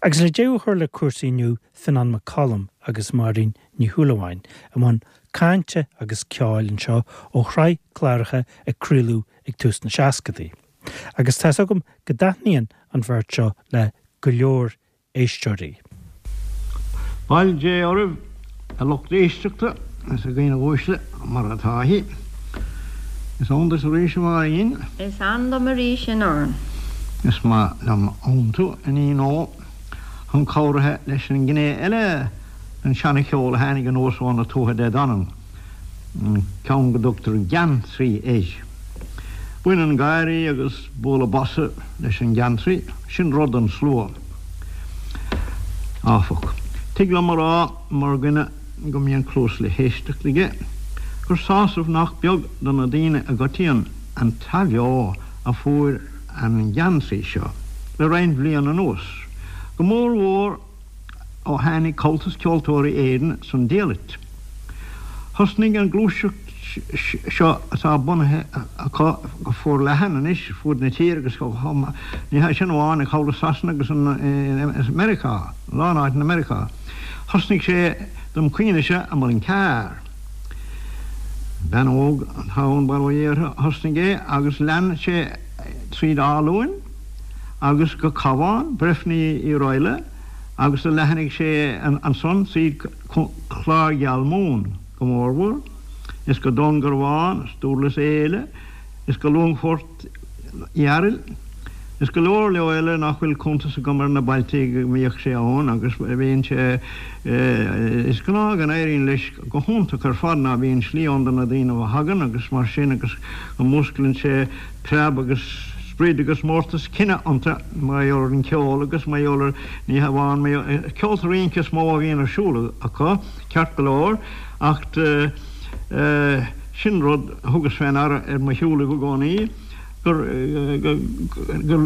Agus le deireadh a chur le cúrsaí inniu, Fionán Mac Coluim agus Máirín Ní Shúilleabháin i mbun cainte agus ceoil anseo ó shraith cláracha a craoladh ag tús na seascadaí. Agus tá's agam go dtaitníonn an bheirt seo le go leor éisteoirí. Bail Dé oraibh, a lucht éisteachta is a dhaoine uaisle, mar atá sí. Is ann duit arís, a Mháirín. Is ann dom arís, a Fhionáin. Is maith liom aontú, a iníon ó, chun cabhraithe leis an ngné eile den seana-cheol a tháinig anuas ó na Tuatha Dé Danann. an ceann go dtugtar geantraí air. Baineann gáirí agus bualadh bosa leis an gheantraí, sin rud don slua, áfach. Tig liom a rá, mar dhuine go mbíonn cluas le héisteacht aige, gur sásamh nach beag do na daoine i gcoitinne an t-athbheo a fuair an geantraí seo le roinnt bhliain anuas, go mór mhór ó tháinig Comhaltas Ceoltóirí Éireann san diallait. Thosnaigh an ghluaiseacht seo atá bunaithe acu go forleathan anois fud na tíre agus ní hé sin amháin ach thall i Sasana agus i Meiriceá, a lán áiteanna i Meiriceá. Thosnaigh sé dom chuimhnese i Muileann Cearr. Bean óg atá ann bail ó Dhia uirthi a thosnaigh é agus lean sé tríd Áth Luain agus go Cabhán, Breifne Uí Raghallaigh agus do leathnaigh sé ansan tríd Clár Gheal Mumhan go mórmhór, is go Dún Garbhán, is Dúrlas Éile, is go Longfort Fhearail, is go leor leor eile nach bhfuil cuntas agam ar na bailtí go mbíodh sé ann agus bíonn sé, is gnáth go n-éiríonn leis go hiontach ar fad ná bíonn slí ann do na daoine a thagann agus mar sin agus go músclaíonn sé preab agus sprid agus mórtas cine iontu mar gheall ar an cheol agus mar gheall ar, ní hamháin mar gheall, ceolta rince is mó a bhíonn ar siúl acu, ceart go leor, acht sin rud a thugas fé ndeara ar mo shiúlaibh i gcónaí, gur, go, go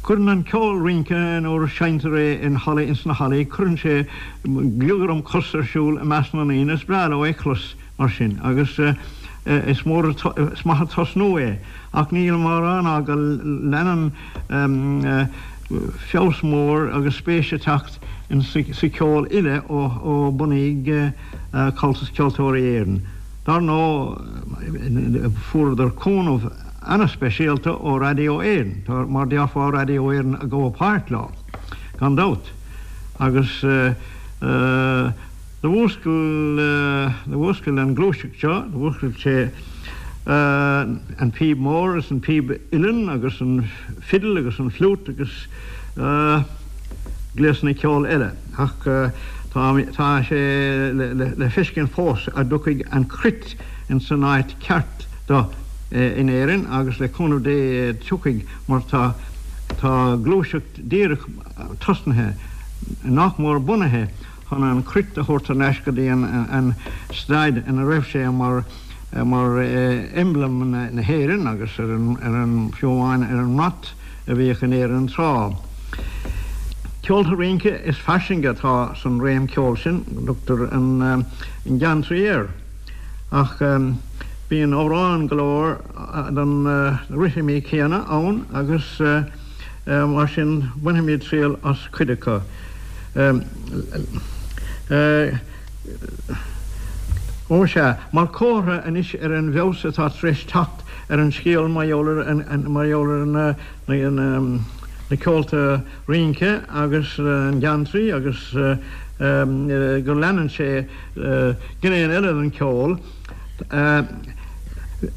gcuireann an ceol rince nuair a seinntear é in hallaí, ins na hallaí, cuireann sé gliogaram cos ar siúl i measc na ndaoine, is breá leo é clos. mar sin, agus is mór, is maith an tosnú é, ach nílim á rá ná go leanann feabhas mór agus spéis ag teacht sa cheol uile ó bunaíodh Comhaltas Ceoltóirí Éireann. Dar ndóigh, fuaireadar cúnamh ana-speisialta ó Radio Éireann, mar déarfá Radio Éireann ag gabháil páirt leo, gan dabht, agus. Do mhúscail, do mhúscail an ghluaiseacht seo, do mhúscail sé an phíb mhór is an phíb uilleann agus an fidil agus an fliút agus gléasanna ceoil eile. Ach tá, tá sé le feiscint fós a dtiocfaidh an cruit ins an áit ceart do in Éirinn agus le cúnamh Dé tiocfaidh mar tá, tá gluaiseacht díreach tosnaithe, nach mór bunaithe, chun an cruit a thabhairt thar n-ais go dtí an staid ina raibh sé mar mar emblem na hÉireann agus ar an, fiú amháin ar an mbrat a bhíodh in Éirinn tráth. Ceolta rince is fairsinge atá san réim ceoil sin, tugtar an geantraí air, ach bíonn amhráin go leor den rithimí céanna ann agus Mar sin, bainfimid triail as cuid acu. Ó sea, mar chomhartha anois ar an bhfeabhas atá tar éis teacht ar an scéal mar gheall ar, mar gheall ar na, na ceolta rince agus an geantraí agus go leanann sé gné eile den cheol,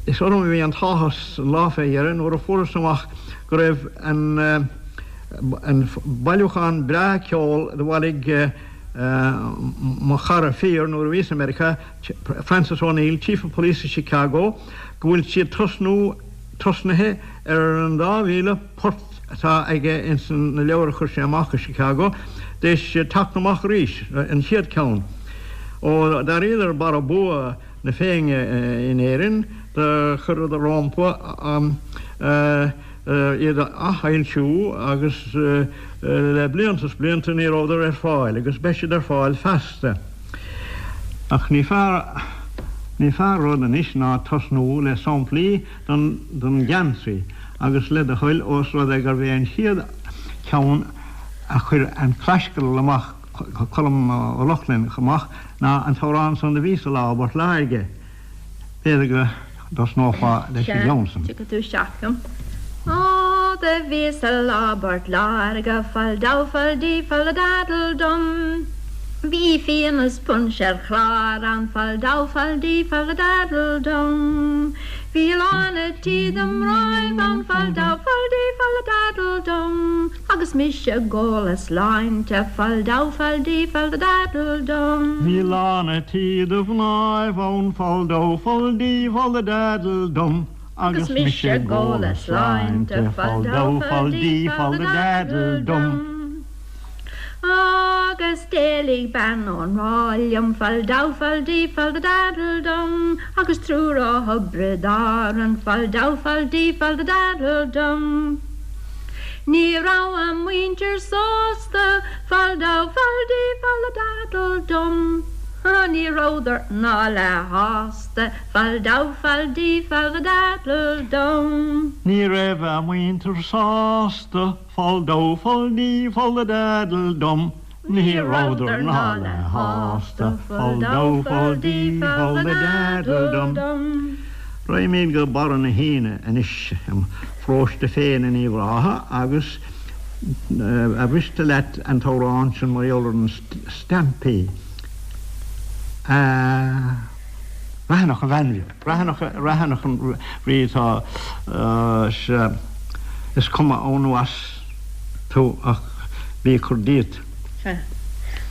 Is orm a bhí an t-áthas an lá fé dheireadh nuair a fuaireas amach go raibh an bailiúchán breá ceoil do bhailigh mo chara fíor nuair a bhíos i Meiriceá, Francis O'Neill, Chief of Police i Chicago, go bhfuil siad tosnú, tosnaithe ar an 2,000 port atá aige ins na leabhair a chuir sé amach i Chicago, d'éis teacht amach arís, an chéad cheann. Ó d'éiríodar barra bua na Féinne in Éirinn, do chuireadar rómpa iad a athfhoilsiú agus le blianta is blianta ní rabhadar ar fáil agus beidh siad ar fáil feasta. Ach ní fearr, ní fearr rud anois ná tosnú le samplaí den gheantraí agus le do thoil ós rud é gurbh é an chéad cheann. a chuir an Claisceadal amach, Colm Ó Lochlainn amach ná an t-amhrán san do bhí sa Lá i bPort Láirge. B'fhéidir go dtosnófá leis an gceann san. Sea, tiocfaidh tú isteach liom. Ó, do bhí sa lá i bPort Láirge, fal dó fal dí fal da daddle dum. Bhí fíon is punch ar chlár ann, fal dó fal dí fal da daddle dum. Bhí lán a' tí de mhnáibh ann, fal dó fal dí fal da daddle dum. Agus mise ag ól a sláinte, fal dó fal dí fal da daddle dum. Bhí lán a' tí de mhnáibh ann, fal dó fal dí fal da daddle dum. Agus mise ag ól a sláinte, fal dó fal dí fal da daddle dum. Agus d'éalaigh bean ón ráth liom, fal dó fal dí fal da daddle dum. Agus triúr ó Thiobraid Árann, fal dó fal dí fal da daddle dum. Ní raibh a muintir sásta, fal dó fal dí fal da daddle dum. Ní rabhadar ná leath shásta, fal dó fal dí fal da daddle dum. Ní raibh a muintir sásta, fal dó fal dí fal da daddle dum. Ní rabhadar ná leath shásta, fal dó fal dí fal da daddle dum. Raghaimid go Barra na hAoine anois, im pharóiste féin in Uíbh Ráthaigh agus ar mhiste leat an t-amhrán sin mar gheall ar na stampaí a Raithineach a bhean bheag. Raithineach, Raithineach an rí atá sea, is cuma ann nó as tú ach bí ag cur díot. Sea.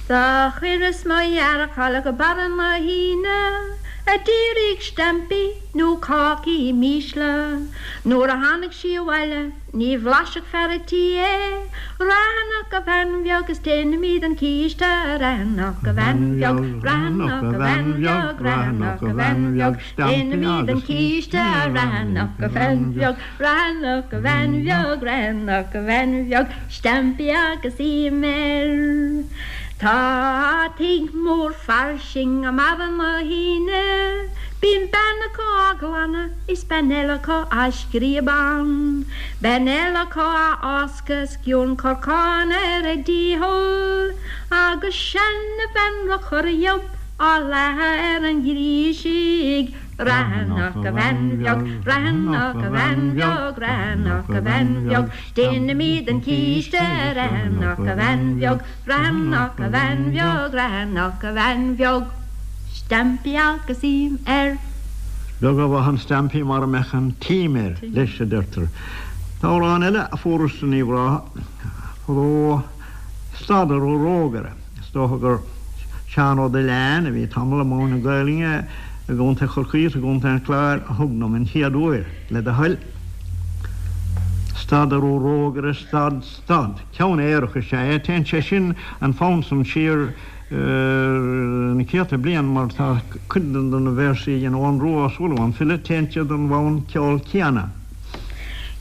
Do chuireas mo dheargchal go Barra na hAoine a d'iarraidh stampaí nó cácaí mísle. Nuair a tháinig sí abhaile Ní bhlaisfeadh fear a' tí é. Raithineach a bhean bheag is déanfaimid an císte Raithineach a bhean bheag, Raithineach a bhean bheag, Raithineach a bhean bheag, déanfaimid an císte Raithineach a bhean bheag, Raithineach a bhean bheag, Raithineach a bhean bheag, stampaí agus im air. Tá tigh mór fairsing i mBarra na hAoine. Bíonn bean acu á ghlanadh is bean eile acu á scríob ann. Bean eile acu á fháscadh is sciorn corcáin ar a dícheall. Agus seana-bhean ro chur dhiob á leathadh ar an ghríosaigh. Raithineach a bhean bheag, raithineach a bhean bheag, raithineach a bhean bheag, déanfaimid an císte raithineach a bhean bheag, Raithineach a bhean bheag, raithineach a bhean bheag, stampaí agus im air. Is beag a mhaith an stampaí mara mbeadh an t-im air leis, a deirtear. Tá amhrán eile a fuarthas in Uíbh Ráthaigh fadó, Stad a Rógaire. Is dócha gur Seán Ó Duilleáin, a bhí tamall i mbun na Gaelainne i gContae Chorcaí is i gContae an Chláir, a thug dom an chéad uair, le do thoil. Stad a Rógaire, stad, stad. Ceann aerach is ea é. Téann sé sin, an fonn san, siar na céadta bliain mar tá cuid de na véarsaí a dhein Eoghan Rua Ó Súilleabháin, an file, téann siad don bhfonn ceoil céanna.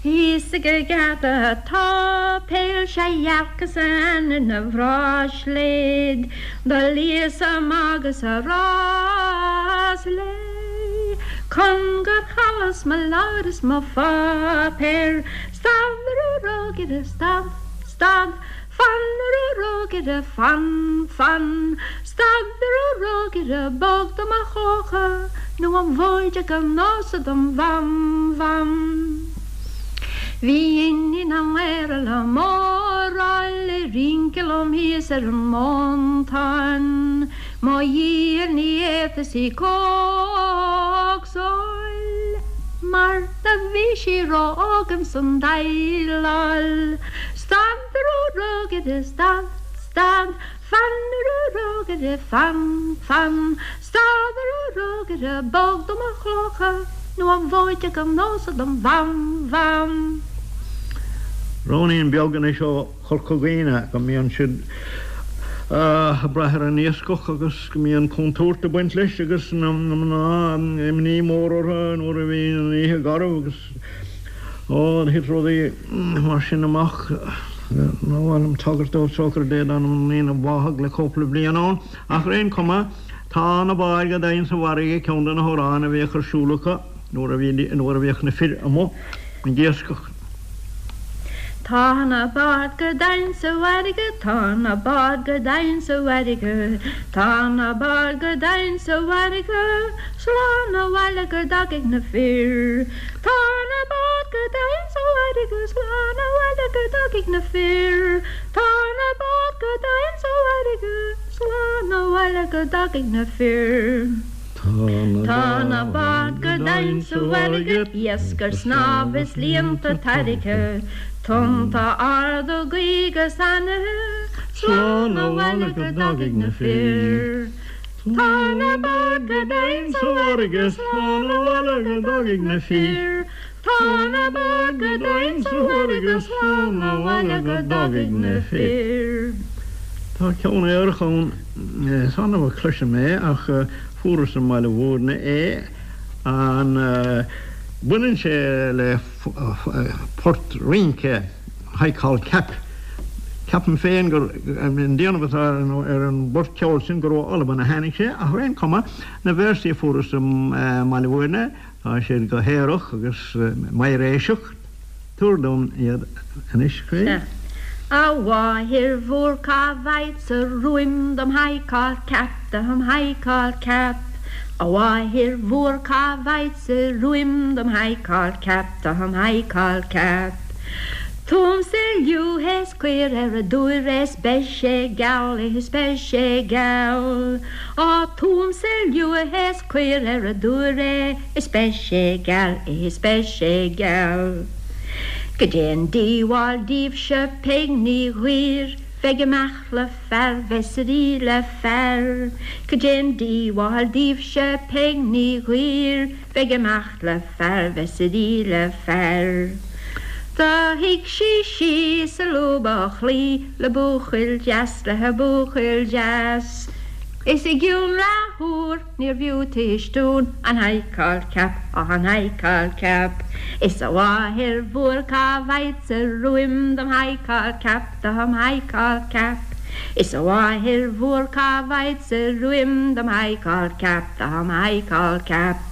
Thíos ag an gheata tá peil sé dhearcas aithne na bhráisléad do lios amach agus a rás léi chun gur chailleas mo leabhar is mo pháipéar Stad a Rógaire, stad, stad, fan a Rógaire, fan, fan, stad a Rógaire, bog do mo chlocha nó an mhóid i gan fhios dom mham, mham. Bhí iníon an Mhéara liom ofráil ag rince liom thíos ar an montán, Mo dhícheall ní fhéadfas í cócsáil mar do bhí sí ró-óg ins an déileáil. Stad a Rógaire, stad, stad, fan a Rógaire, fan, fan, stad a Rógaire, bog do mo chlocha nó an mhóid gan fhios dom mham, mham. Ruainnín beag anois ó Chorca Dhuibhne go mbíonn siad ag brath ar an iascach agus go mbíonn contúirt ag baint leis agus na mná imní mór orthu nuair a bhíonn an oíche garbh agus ó thit rudaí mar sin amach. Níor mhaith liom tagairt dóibh socair Dé dá ndaoine a bháthadh le cúpla bliain ann ach ar aon chuma tá na báid go domhain sa bhfarraige ceann de na hamhráin a bhíodh ar siúl acu nuair a bhíodh na fir amuigh ag iascach. Tá na báid go domhain sa bhfarraige, tá na báid go domhain sa bhfarraige, tá na báid go domhain sa bhfarraige, slán abhaile go dtagaidh na fir. Tá na báid go domhain sa bhfarraige, slán abhaile go dtagaidh na fir. Tá na báid go domhain sa bhfarraige, slán abhaile go dtagaidh na fir. Tá na báid go domhain sa bhfarraige, iasc ar snámh is líonta tarraicthe, tonnta arda gaoth 'gus anaithe, slán abhaile go dtagaidh na fir. Tá na báid go domhain sa bhfarraige, slán abhaile go dtagaidh na fir. Tá na báid go domhain sa bhfarraige, slán abhaile go dtagaidh na fir. Tá ceann aorach ann, is annamh a chloisim é ach fuaireas i mBaile Mhúirne é. An baineann sé le port rince High Call Cap? Ceapaim féin gur, an déanamh atá ar an bport ceoil sin, gur ó Albain a tháinig sé ach ar aon chuma, na véarsaí a fuaireas i mBaile Mhúirne, Tá siad go haerach agus meidhréiseach. Tabhair dom iad anois, a chroí. Sea. A mháthair mhór cá bhfaigheadsa ruaim dom high call cap, dom high call cap. A mháthair mhór cá bhfaigheadsa ruaim dom high call cap, dom high call cap. Tugaimse liú is caor ar an dtuar is beidh sé geal, is beidh sé geal. Á tugaimse liú is caor ar an dtuar é is beidh sé geal, is beidh sé geal. Goidé an díobháil daoibhse Peig Ní Ghuidhir bheith ag imeacht le fear bheith suirí le fear. Goidé an díobháil daoibhse Peig Ní Ghuidhir bheith ag imeacht le fear bheith suirí le fear. Do shuigh sí síos i lúb a' chlaí le buachaill deas le buachaill deas. Is i gcionn leathuair níorbh fhiú tuistiún an high call cap, an high call cap. Is a mháthair mhór cá bhfaigheadsa ruaim dom high call cap, dom high call cap. Is a mháthair mhór cá bhfaigheadsa ruaim dom high call cap, dom high call cap.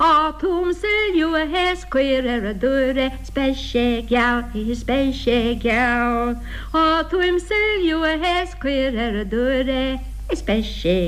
Á tugaimse liú is caor ar an dtuar é 's beidh sé geal, is beidh sé geal. Á tugaimse liú is caor ar an dtuar é is beidh sé.